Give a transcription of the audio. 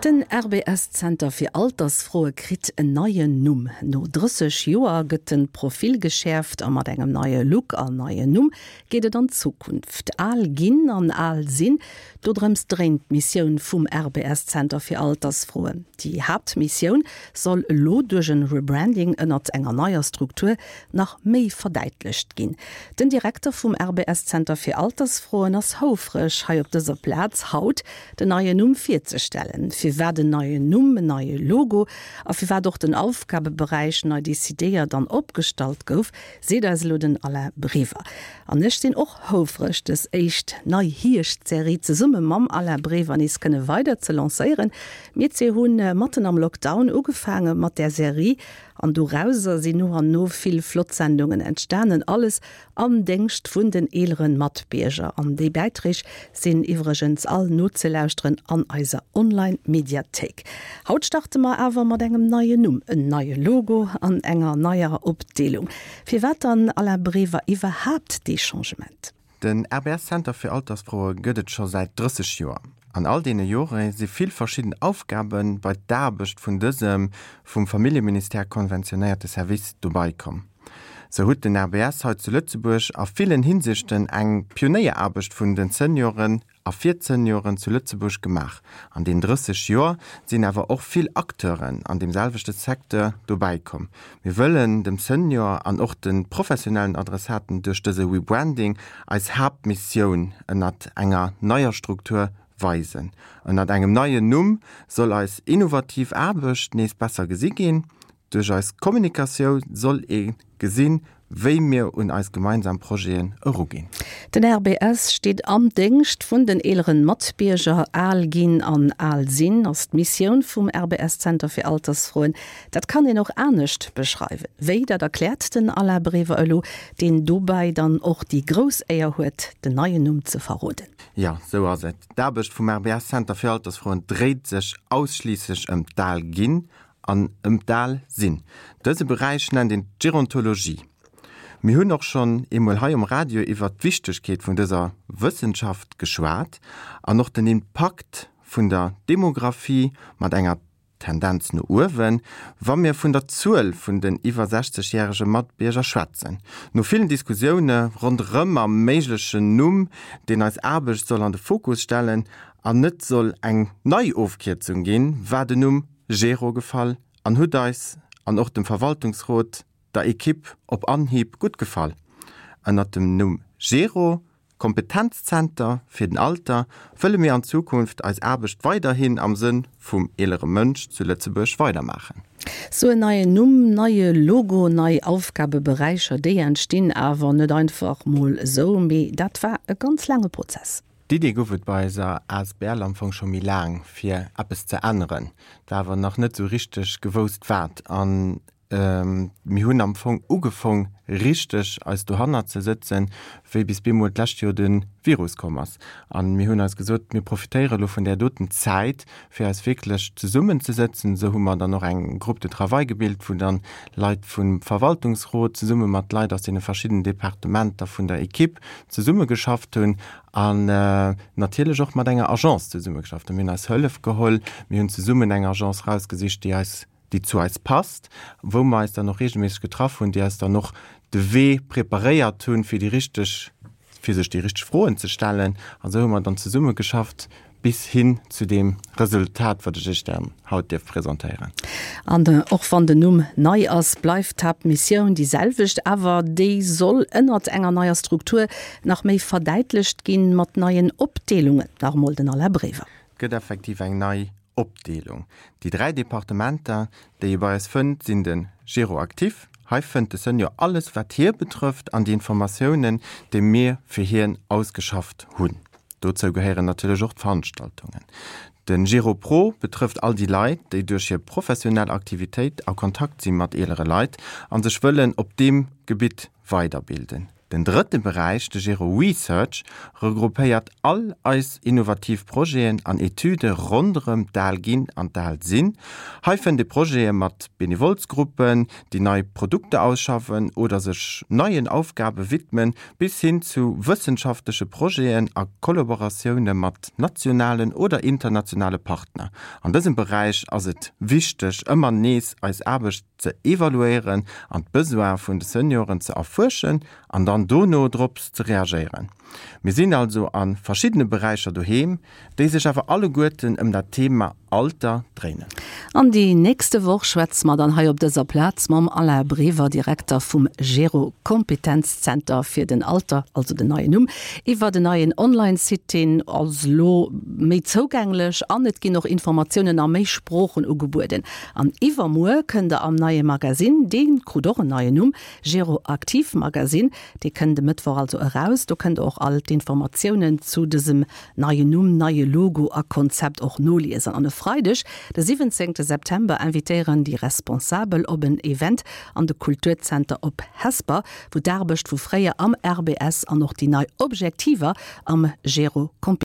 Den RBS-Zenter fir Altersfroe kritt en neien Numm. No 30 Joer gëtt de Profil geschäerft a mat engem neie Look an neien Numm geet et an d'Zukunft. Al ginn an al sinn, dodrëms dréint d'Missioun vum RBS-Zenter fir Altersfroen. Déi Haaptmissioun soll elo duerch en Rebranding ënnert enger neier Struktur nach méi verdäitlecht ginn. Den Direkter vum RBS-Zenter fir Altersfroen ass houfreg, hei op dëser Plaz haut den neien Numm virzestellen. Firwat en neien Numm, en neie Logo a firwat och den Aufgabeberäich nei decidéiert an opgestallt gouf, seet eis elo den Alain Brever. An ech sinn och houfreg, dës éischt nei Hierscht-Serie zesumme mam Alain Brever nees kënne weider ze lancéieren. Mir zwee hu matten am Lockdown ugefaange mat där Serie an dorauser sinn no an no vill flott Sendungen entstanen. Alles Am Déngscht vun den eeleren Matbierger. An déi Bäiträg sinn iwwregens all nozelauschteren an eiser Online-Mediathéik. Haut starte mer awer mat engem neien Numm, en neie Logo an enger neier Opdeelung. Firwat dann, Alain Brever, iwwerhaapt dee Changement? Den RBS Center fir Altersfroe gëtt et scho säit 30 Joer. An all deene Jore si vill verschidden Aufgabe bei d'Aarbecht vun dësem vum Familljeministère konventionéierte Service dobei komm. Sou hutt den RBS hei zu Lëtzebuerg a villen Hinsichten eng Pionéieraarbecht vun den Senioren a fir d'Senioren zu Lëtzebuerg gemaach. An den 30 Joer sinn awer och vill Acteuren an deem selwechte Secteur dobäi komm. Mir wëllen dem Senior an och de professionellen Adressaten duerch dëse Rebranding eis Haaptmissioun ënnert enger neier Struktur weisen. Ënnert engem neien Numm soll eis innovativ Aarbecht nees besser gesi ginn. Duerch eis Kommunikatiou soll ee gesinn, wéi mir un eis gemeinsam Projeten eruginn. Den RBS steet am Déngscht vun den eeleren Matbierger. Al ginn an al sinn ass d'Missioun vum RBS Zenter fir Altersfroen. Dat kann een och anescht beschreiwen. Wéi, dat erkläert den Alain Brever elo, deen dobäi dann och déi grouss Éier huet, den neien Numm ze verroden. Jo, sou ass et. D'Aarbecht vum RBS Zenter fir Altersfroen dréit sech ausschliisslech ëm d'Al ginn an ëm d'Al sinn. Dëse Beräich nennt een d'Gerontologie. Mir hunn och schonn eemol hei um Radio iwwert d'Wichtegkeet vun dëser Wëssenschaft geschwat an och den Impakt vun der Demographie mat enger Tendenz no uewen, wa mir vun der Zuel vun den iwwer 60 järege Matbierger schwätzen. No villen Diskussioune ronderëm am méiglechen Numm, deen eis Aarbecht soll an de Fokus stellen an net soll eng nei Ofkierzung ginn, war den Numm Gero gefall an hutt eis an och dem Verwaltungsrot, der Equipe op Anhieb gutt gefall. Ënnert dem Numm Gero, Kompetenzzenter fir den Alter, wëlle mir an Zukunft eis Aarbecht weiderhin am Sënn vum eelere Mënsch zu Lëtzebuerg weidermaachen. Sou en neien Numm, neie Logo, nei Aufgabeberäicher, déi entstinn awer net einfach mol esou, mee dat war e ganz laange Prozess. D'Idee gouf et bei eiser asbl am Fong scho méi laang, fir eppes ze änneren. Et war awer nach net esou richteg gewousst wat. An mir hunn am Fong ugefong richteg eis dohannert ze sëtzen, wéi bis bemol d'lescht Joer de Virus komm ass. An mir hunn eis gesot, mir profitéiere lo vun där doten Zäit, fir eis wierklech zesummenzesëtzen. Esou hu mer dann och eng Groupe de travail gebilt, wou dann Leit vum Verwaltungsrot zesumme mat Leit aus deene verschiddenen Departementer vun der Equipe zesummegeschafft hunn an natierlech och mat enger Agence zesummegeschafft hunn. Mir hunn eis Hëllef geholl, mir hunn zesummen eng Agence rausgesicht, déi eis, déi zu eis passt, wou mer eis dann och reegelméisseg getraff hunn, déi eis dann och de Wee preparéiert hunn, fir déi richteg fir sech déi richteg Froen ze stellen. An esou hu mer dann zesummegeschafft bis hin zu deem Resultat, wat ech Iech dann haut dierf presentéieren. An och wann den Numm nei ass, bleift d'Haaptmissioun déi selwecht. Awer déi soll ënnert enger neier Struktur nach méi verdäitlecht ginn, mat neien Opdeelungen. Nach emol den Alain Brever. Et gëtt effektiv eng nei Opdeelung. Déi 3 Departementer, déi ee bei eis fënnt, sinn de Gero Actif, hei fënnt de Senior alles wat hie betrëfft an déi Informatiounen, déi mir fir hien ausgeschafft hunn. Dozou gehéieren natierlech och d'Veranstaltungen. De Gero Pro betrëfft all déi Leit, déi duerch hir professionell Aktivitéit a Kontakt si mat eelere Leit a sech wëllen op deem Gebitt weiderbilden. Den drëtte Beräich, de Gero Research, regroupéiert all eis innovativ Projeten an Etüde ronderëm d'Al ginn an d'Al sinn. Hei fënnt ee Projete mat Benevolsgruppen, déi nei Produkter ausschaffen oder sech neien Aufgabe widmen, bis hin zu wëssenschaftleche Projeten a Kollaboratioune mat nationalen oder internationale Partner. An dësem Beräich ass et wichteg, ëmmer nees eis Aarbecht ze evaluéieren an d'Besoine vun de Senioren ze erfuerschen an dann dono drops ze reagéieren. Mir sinn also a verschiddene Beräicher doheem, déi sech awer alleguerten ëm dat Thema Alter dréinen. An déi nächste Woch schwätze mer dann hei op dëser Plaz mam Alain Brever, Direkter vum Gero Kompetenzzenter fir den Alter, also den neien Numm, iwwer en neien Online-Site, deen ass elo méi zougänglech an et ginn och Informatiounen a méi Sproochen ugebueden. An iwwermuer kënnt der am neie Magasinn, dee krut och en neien Numm, Gero Aktiv Magasinn, dee kënnt e Mëttwoch also eraus. Do kënnt der och all d'Informatiounen zu dësem neien Numm, neie Logo a Konzept och noliesen. An e Freideg, de 17 September, invitéieren déi Responsabel op en Event an de Kulturzenter op Hesper, wou d'Aarbecht vu fréier am RBS an och déi nei Objektiver am Gero.